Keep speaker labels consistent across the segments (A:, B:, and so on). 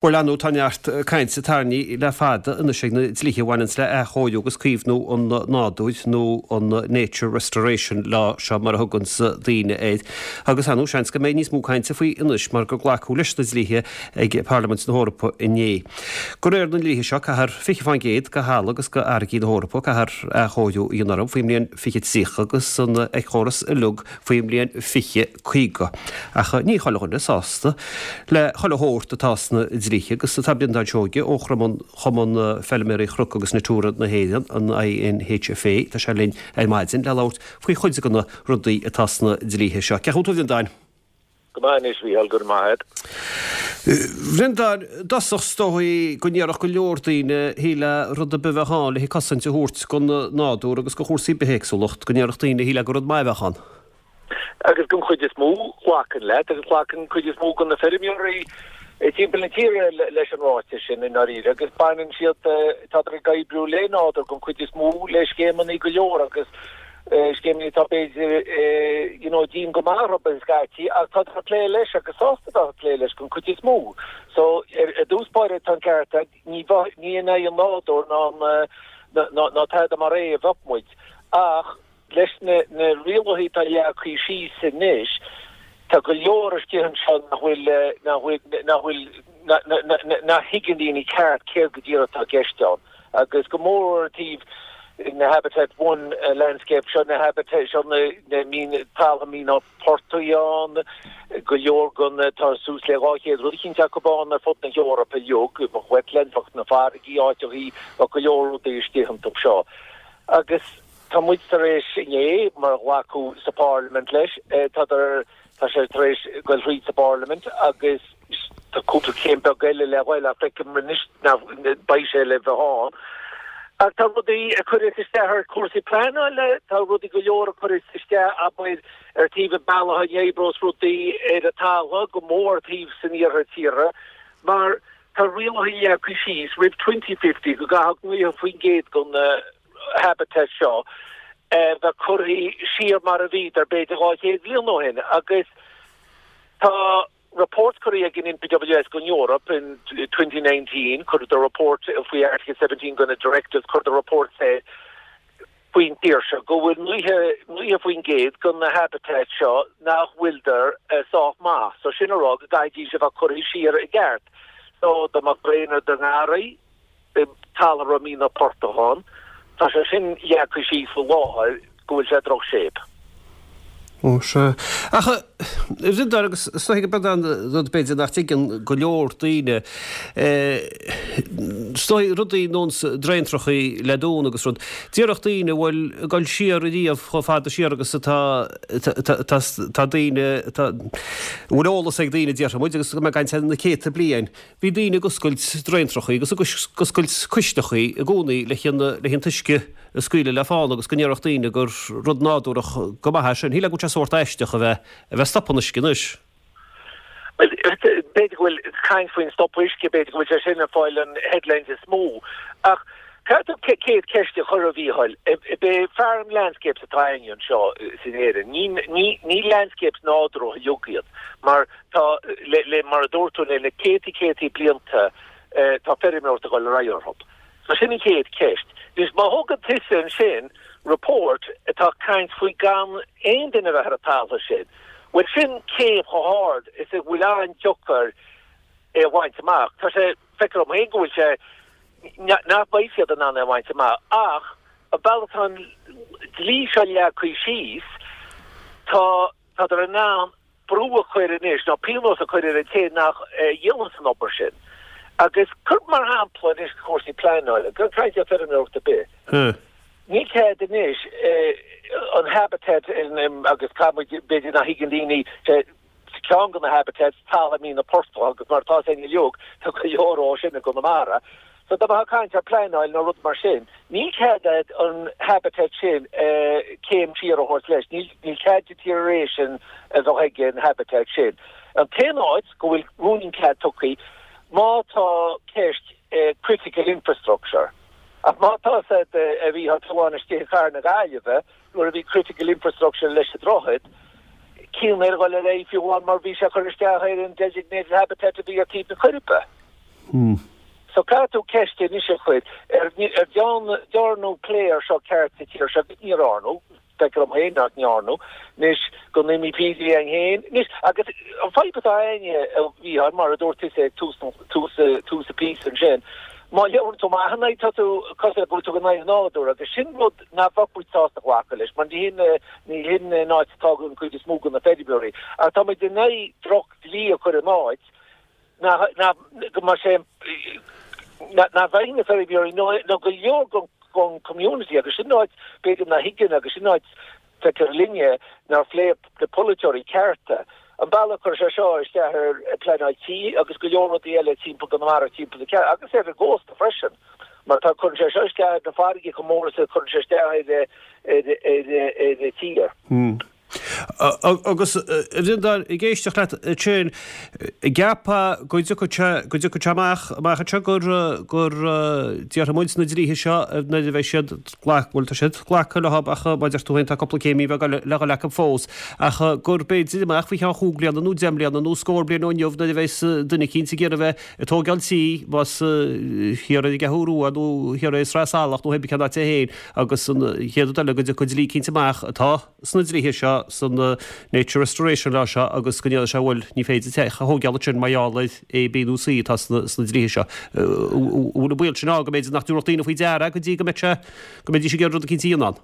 A: Bhuel, ar ndóigh, tá neart cainte tarraingthe le fada anois ag na dlíthe a bhaineanns le athchóiriú agus caomhnú an nádúir, nó an Nature Restoration Law seo mar a thuganns daoine air. Agus ar ndóigh, seans go mbeidh níos mó cainte faoi anois mar gur glacadh leis na dlíthe ag Parlaimint na hEorpa inné. De réir na ndlíthe seo, caithfear 20% de thalamh agus de fharraigí na hEorpa, caithfear athchóiriú a dhéanamh orthu faoin mbliain 2030 agus an éiceachóras uilig faoin mbliain 2050. Ach ní chuile dhuine sásta le chuile shórt atá sna dlíthe agus tá Breandán Seoige ó Chumann Feilméaraí Chnoc agus Natura na hÉireann, an INHFA, tá sé linn ar maidin le labhairt faoi chuid de na rudaí atá sna dlíthe seo. Cén chaoi a bhfuil tú a Bhreandáin?
B: Go maith anois, Mhícheál, go raibh maith agat.
A: Bhreandáin, i dtosach is dóigh go ndéarfadh go leor daoine, shílfeá rud ar bith a bheadh ann le cosaint a thabhairt don nádúr agus do chúrsaí bithéagsúlacht, go ndéarfadh daoine, shílfeá gur rud maith a bheadh ann.
B: Agus den chuid is mó, glacaim leat, agus glacann an chuid is mó de na feirmeoirí timpeall na tíre leis an ráiteas sin i ndáiríre, agus baineann siad, tádar ag oibriú le nádúr den chuid is mó, le scéimeanna go leor agus scéimeanna atá b'fhéidir you know dian go maith orthu scaití ach tádar ag plé leis agus sásta bheith ag plé leis den chuid is mó. So ar dtús báire tá an ceart agat, ní bheadh, ní in aghaidh an nádúir ná ná ná tada mar é a bheadh muid ach Leis na rialacha atá leagtha síos anois, tá go leor istigh anseo nach bhfuil, nach bhfuil, nach bhfuil, nach thuigeann daoine ceart céard go díreach atá i gceist ann. Agus go mór ar taobh na Habitat One landscape seo, na habitat seo, na mín, taltha míne portaigh ann, go leor den, tá suas le 200 rud eicínt acu ann ar fud na hEorpa uilig, bheadh wetlands, bheadh na farraigí, áiteachaí, bheadh go leor rudaí istigh iontu seo. Agus. Tá muid tar éis inné, mar ghlacadh sa Pharlaimint leis, tá tá sé tar éis goil thríd sa bParlaimint agus tá cúpla céim beag eile le ghoil ach feicim anois nach beidh sé le bheith ann. Ach tá rudaí a chuireas isteach ar chúrsaí pleanála, tá rudaí go leor a chuireas isteach, abair, ar taobh an bealach a n-oibreos rudaí ar an talamh, go mór ar taobh san iarthar tíre, mar tá rialacha leagtha síos roimh 2050 go gcaithfeadh 90% den habitat seo bheith curtha siar mar a bhíodar b'fhéidir 200 bliain ó shin agus tá report curtha ag an NPWS don Eoraip in 2019, chuireadar report faoi Article 17 de na directives, chuireadar report faoin tír seo go bhfuil 90% de na habitats seo nach bhfuildar sách maith. So sin a rá go gcaithfidís a bheith curtha siar i gceart. So dá mbeadh braon i do ngarraí, talamh a raibh mianach portach ann. Tá sé sin leagtha síos faoi láthair go bhfuil sé i droch-shape.
A: Ó sea. Ach a Bhreandáin, agus is dóigh gurb é an rud b'fhéidir nach dtuigeann go leor daoine, is dóigh rudaí ar nós draentrachaí le dúnadh agus rud, déarfadh daoine, bhuel, ag dul siar ariamh chomh fada siar agus atá, tá daoine, a bhfuil eolas ag daoine, déarfaidh muid, agus go mbeidh caint ar na céadta bliain, Bhí daoine ag oscailt draentrachaí agus ag oscailt cuisleachaí i gcónaí le an t-uisce a scaoileadh le fána agus go ndéarfadh daoine gur rud nádúrach go maith é sin. Shílfeá go bhfuil sé sórt aisteach a bheith a bheith ag stopadh an uisce anois.
B: Bhuel, b'fhéidir go bhfuil caint faoin stopadh uisce, b'fhéidir go bhfuil sé sin ag fáil an headlines is mó. Ach caithfidh tú céad ceist a chur, a Mhícheáil. B'é farm landscapes atá againn anseo in Éirinn. Ní, ní, ní landscapes nádúrtha uilig iad mar Tá, le, mar a dúirt tú, le na céadtaí céadtaí blianta tá feirmeoireacht ag dul ar aghaidh orthu. So sin an chéad cheist. Anois má thugann tusa ansin report atá ag caint faoi gan aon duine a bheith ar an talamh sin, bhuel sin céim chomh hard is a bhfuil an-deacair é a bhaint amach. Tá sé, feictear dom féin go bhfuil sé, nach mbeidh siad in ann é a bhaint amach ach an bealach atá an dlí seo leagtha síos, tá, tádar in ann brú a chur anois, nó pionós a chur ar an té nach dhéananns an obair sin. Agus cuir mar shampla anois cúrsaí pleanála, gan caint ar feirmeoireacht ar bith. Níl cead anois an habitat agus caithfidh muid, b'fhéidir nach thuigeann daoine, ceann de na habitats, talamh míne portach agus mar atá againn uilig, tá go leor dhó sin i gConamara. So dá mbeifeá ag caint ar pleanáil nó rud mar sin, níl cead agat an habitat sin céim siar a thabhairt leis, níl cead deterioration a bheith ag an habitat sin. An t-aon áit go bhfuil rúinín cead tugtha, má tá ceist critical infrastructure. Ach má tá a fhios agat amháin istigh i gcathair na Gaillimhe, nuair a bhí critical infrastructure leis an droichead, cinn ar dhul ar aghaidh fiú amháin mar bhí sé ag cur isteach ar an designated habitat a bhí ar taobh na Coiribe. So caithfidh tú ceist anois a chur, ar dearnadh plé ar seo ceart sa tír seo agus ní dhearnadh, feictear dom féin nach ndearnadh, anois go MEPs againn féin, anois agus an fadhb atá againne a Mhícheáil, mar a dúirt tusa ag tús tús tús an phíosa ansin, má labhrann tú amach ina aghaidh tá tú cosúil go bhfuil tú in aghaidh an nádúir agus sin rud nach bheadh muid sásta glacadh leis mar ní hin ní hin an áit atá an chuid is mó de na feirmeoirí ach tá muid in aghaidh droch dlí a chur in áit nach go mbeidh sé nach bhfaighidh na feirmeoirí nó nó go leor den den community agus sin áit b'fhéidir nach thuigeann agus sin áit feictear linne nár phléigh na polaiteoirí cearta an bealach a chuir sé seo isteach ar pleanáil tí agus go leor rudaí eile timpeall Chonamara timpeall na ceann agus ar an gcósta freisin mar tá cuireann sé seo isteach ar na farraige chomh mór is a chuireann sé isteach ar ar ar ar an tír.
A: Agus a Bhreandáin, ag éisteacht leat ansin, an gceapfá go dtiocfaidh sé, go dtiocfaidh sé amach, amach anseo gur, gur déarfaidh muid na dlíthe seo nuair a bheidh siad glac, bhuel tá siad glactha leo ach mar a deir tú féin tá cúpla céimí bheag le dhul acu fós, ach gur b'fhéidir amach faoi cheann chúig bliana nó deich mbliana nó scór bliain ó inniu nuair a bheas duine eicínt ag iarraidh a bheith ag tógáil tí, más thiar ar an gCeathrú Rua nó thiar i Sraith Salach nó pé cén áit é féin agus an chéad rud eile go dtiocfaidh dlí eicínt amach atá sna dlíthe seo, san Nature Restoration Law seo agus go ndéarfaidh sé bhuel ní féidir teach a thógáil ansin mar gheall ar A, B nó C atá sna dlíthe seo. An bhfuil an baol sin ann go mb'fhéidir nach dtabharfadh daoine faoi deara go dtí go mbeidh sé, go mbeidís ag iarraidh rud eicínt a dhéanamh ann?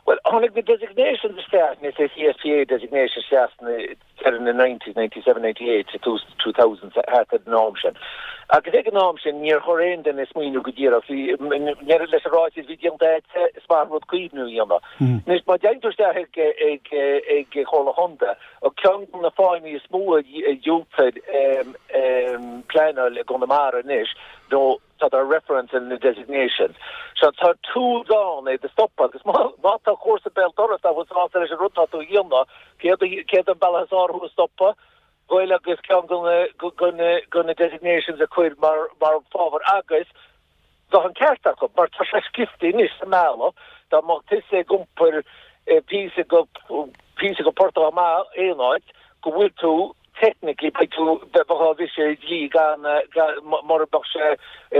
B: Bhuel, tháinig na designations isteach, na CSPA designations isteach sna deireadh na nineties, 97, 98, sa tús 2000, thart ar an am sin. Agus ag an am sin níor chuir aon duine smaoineamh go díreach, bhí, leis an ráiteas a bhí déanta agat, is maith an rud caomhnú a dhéanamh. Anois má dtéann tú isteach ag, ag, ag Comhairle Chontae, ceann de na fáthanna is mó a dhiúltaítear pleanáil i gConamara anois nó tá tá reference in na designations. So tá tools ann é do stopadh agus má má tá comharsa béal dorais nach bhfuil sásta leis an rud tá tú a dhéanamh, céard céard an bealach is fearr thú a stopadh? Goil agus ceann de na de na de na designations a chur mar mar fábhar agus bheadh an ceart acu mar tá sé scriofa anois sa mbealach dá mbeadh tusa ag iompar píosa go píosa go Port Amach aon áit go bhfuil tú technically beidh tú, bheifeá á bhriseadh dlí gan, mura mbeadh sé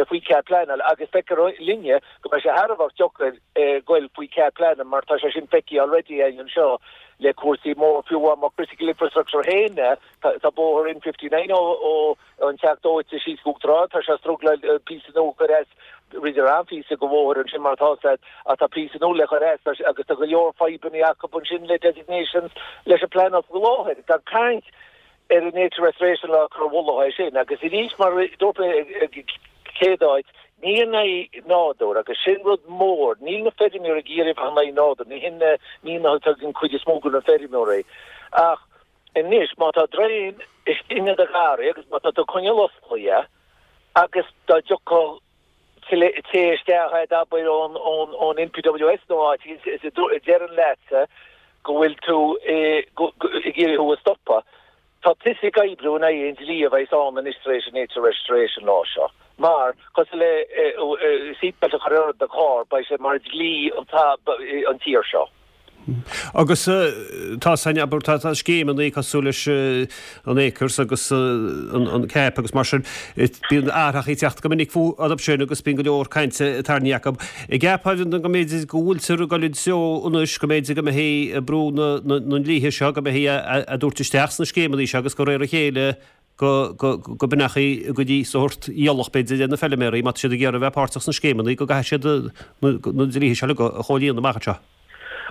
B: faoi chead pleanála agus feictear linne go mbeidh sé thar a bheith deacair goil faoi chead pleanála mar tá sé sin feicthe already againn anseo le cúrsaí mór fiú amháin mar critical infrastructure féin tá bóthar N59 ó ó an Teach Dóite síos go Uachtar Ard tá sé ag struggláil píosa nua a chur as rinneadar an-phíosa de bhóthar ansin mar atá sé ach tá píosa nua le cur as agus tá go leor fadhbanna acu ansin le designations leis an pleanáil faoi láthair. Gan caint ar an Nature Restoration Law cur i bhfolach é sin agus arís mar a dúirt mé ag céad áit ní in aghaidh nádúr agus sin rud mór níl na feirmeoirí ag iarraidh bheith in aghaidh nádúr ní hin na mianach atá ag an cuid is mó de na feirmeoirí ach anois má tá draein istigh i do gharraí agus má tá tú ag coinneáil osclaithe agus dá dtiocfadh té isteach a'd abair ón ón NPWS nó áit is a deireann leatsa go bhfuil tú ag iarraidh thú a stopadh. Tá tusa ag oibriú in aghaidh an dlí a bheas ann anois tar éis an Nature Restoration Law seo. Mar, cosúil le seatbelt a chur ar do charr, beidh sé mar dhlí an tír seo.
A: Agus tá san, abair, tá scéimeanna cosúil leis an Acres agus an CAP agus mar sin, bíonn athraitheacha ag teacht go minic fúthu sin agus bíonn go leor cainte tarraingthe acu. An gceapfá go mb'fhéidir go bhfuiltear ag dul i dtreo anois go mb'fhéidir go mbeidh brú na ndlíthe seo, go mbeidh á dtabhairt isteach sna scéimeanna seo agus de réir a chéile go mbeidh go dtí sórt iallach b'fhéidir ar na feilméaraí má tá siad ag iarraidh a bheith páirteach sna scéimeanna go gcaithfidh siad na dlíthe seo uilig a chomhlíonadh amach anseo.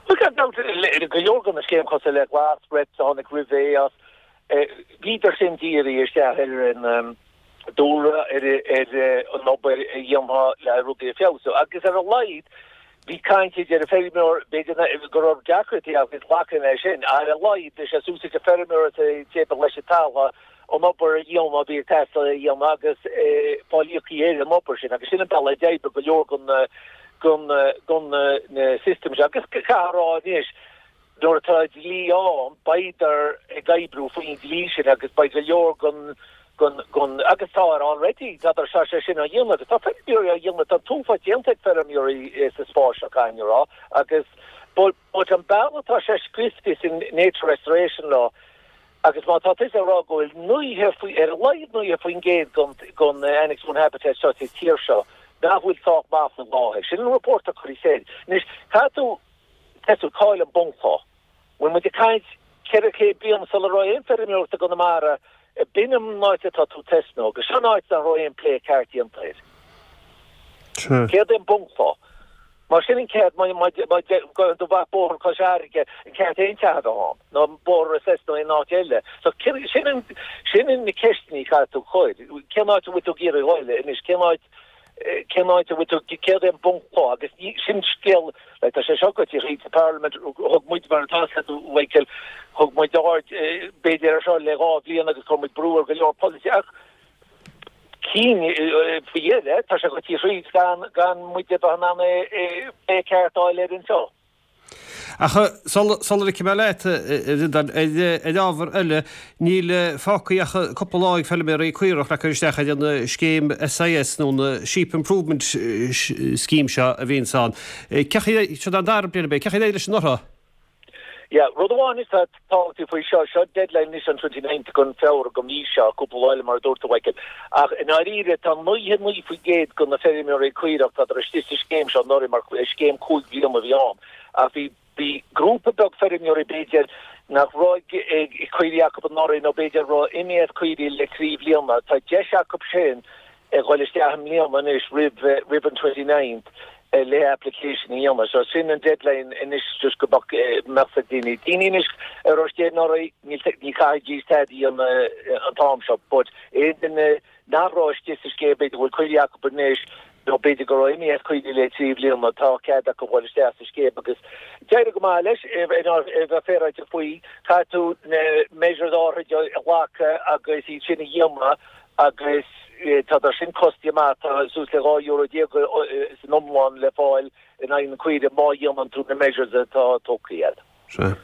B: Bhuel gan dabht go leor de na scéimeanna cosúil le Glas, RETS a tháinig roimh AS, bhíodar sin dírithe isteach ar an dúlra, ar an obair a dhéanfá le rudaí a feabhsú agus ar a laghad bhí caint idir an feirmeoir, b'fhéidir go raibh deacrachtaí agus glacadh leis sin, ach ar a laghad bhí sé suas ag an feirmeoir is an té ba leis an talamh an obair a dhéanamh a bhí ag teastáil a dhéanamh agus fáil íoctha ar an obair sin agus sin an bealach a d'oibrigh go leor den na systems seo agus caithfear a rá anois Nuair atá dlí ann, beidar ag oibriú faoin dlí sin agus beidh go leor den, den, den, agus tá already, tá tá sé sin á dhéanamh agus tá feirmeoirí á dhéanamh, tá an t-uafás déanta ag feirmeoirí sa spás seo, caithfidh mé a rá, agus but, but an bealach atá sé scriofa san Nature Restoration Law. Agus má tá tusa ag rá go bhfuil 90 faoi, ar a laghad 90% gon, gon Annex One Habitat seo sa tír seo nach bhfuil sách maith faoi láthair, sin an report a cuireadh soir. Anois, caithfidh tú tosú, cá'il an bunchloch? Bhfuil muid ag caint 400 bliain sula raibh aon feirmeoireacht i gConamara, b'in an áit atá tú ag tosnú, agus seo an áit nach raibh aon plé ceart déanta air. Céard é an bunchloch? Mar sin an ceart, má gabhann tú amach bóthar Chois Fharraige, an ceart aon teach a bheith ann, nó bóthar Ros nó aon áit eile. So sin an, sin na ceisteanna a chaithfidh tú cur. Cén áit a bhfuil tú ag iarraidh a dhul anois? Cén áit, cén áit a bhfuil tú, céard é an bunchloch? Agus ní, sin scéal, like tá sé seo goite thríd sa Parliament, thug muid mar atá a fhios agat Michael, thug muid aird b'fhéidir ar seo le 2 bhliain agus chuir muid brú ar go leor polaiteoirí ach, cinn faoi dheireadh, tá sé goite thríd gan gan muid a bheith in ann é plé ceart a fháil air anseo.
A: Ach sula ligfidh mé leat, a Bhreandáin, ar ábhar eile, níl fágtha ach cúpla lá ag feilméaraí caorach le cur isteach ar an scéim SIS nó an Sheep Improvement Scheme seo a bhíonns ann. Cén chaoi, seo an dara bliain ab é, cén chaoi ar éirigh leis anuraidh?
B: Yeah, rud amháin is tábhachtaí faoi seo, seo deadline anois an 29th den Feabhra den mhí seo, cúpla lá eile mar a dúirt tú Michael, ach i ndáiríre tá 99% de na feirmeoirí caorach, tádar istigh sa scéim seo anuraidh mar scéim 5 bliana a bhí ann ach bhí bhí grúpa beag feirmeoirí b'fhéidir nach raibh caoirigh acu anuraidh nó b'fhéidir raibh imithe as caoirigh le 3 bhliana, tá deis acu sin a dhul isteach i mbliana anois roimh roimh an 29th le application a dhéanamh. So sin an deadline anois just go mbeadh mbeadh ag daoine. Daoine anois a raibh istigh anuraidh níl ní chaithfidís tada a dhéanamh an t-am seo but aon duine nach raibh istigh sa scéim b'fhéidir go bhfuil caoirigh acu anois nó b'fhéidir go raibh imithe as caoirigh le 3 bhliana tá cead acu dhul isteach sa scéim agus d'éirigh go maith leis a bheith féaráilte faoi caithfidh tú na measures áirithe a ghlacadh agus iad sin a dhéanamh agus tá sin costasach maith, tá suas le 12 euro san iomlán le fáil in aghaidh na caoire má dhéanann tú na measures atá tógtha agat.
A: Sea.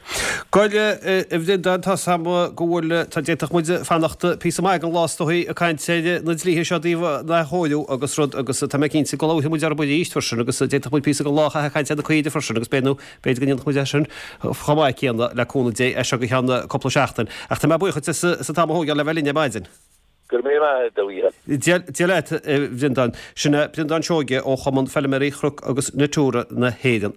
A: Bhuel, a Bhreandáin, tá 's a'm go bhfuil, tá, d'fhéadfadh muid fanacht píosa maith den lá is dóigh ag caint ar na dlíthe seo i dtaobh an athchóiriú agus rud agus tá mé cinnte go labharfaidh muid orthu arís freisin agus d'fhéadfadh muid píosa den lá a chaitheamh ag caint ar na caoirigh freisin agus b'fhéidir nó b'fhéidir go ndéanfadh muid é sin chomh maith céanna le cúnamh Dé as seo go ceann cúpla seachtain. Ach tá mé buíoch duit as an t-am a thógáil le bheith linn ar maidin.
B: Go raibh míle maith agat, a Mhícheáil.
A: Dia leat, a Bhreandáin. Sin é Breandán Seoige ó Chumann Feilméaraí Chnoc agus Natura na hÉireann.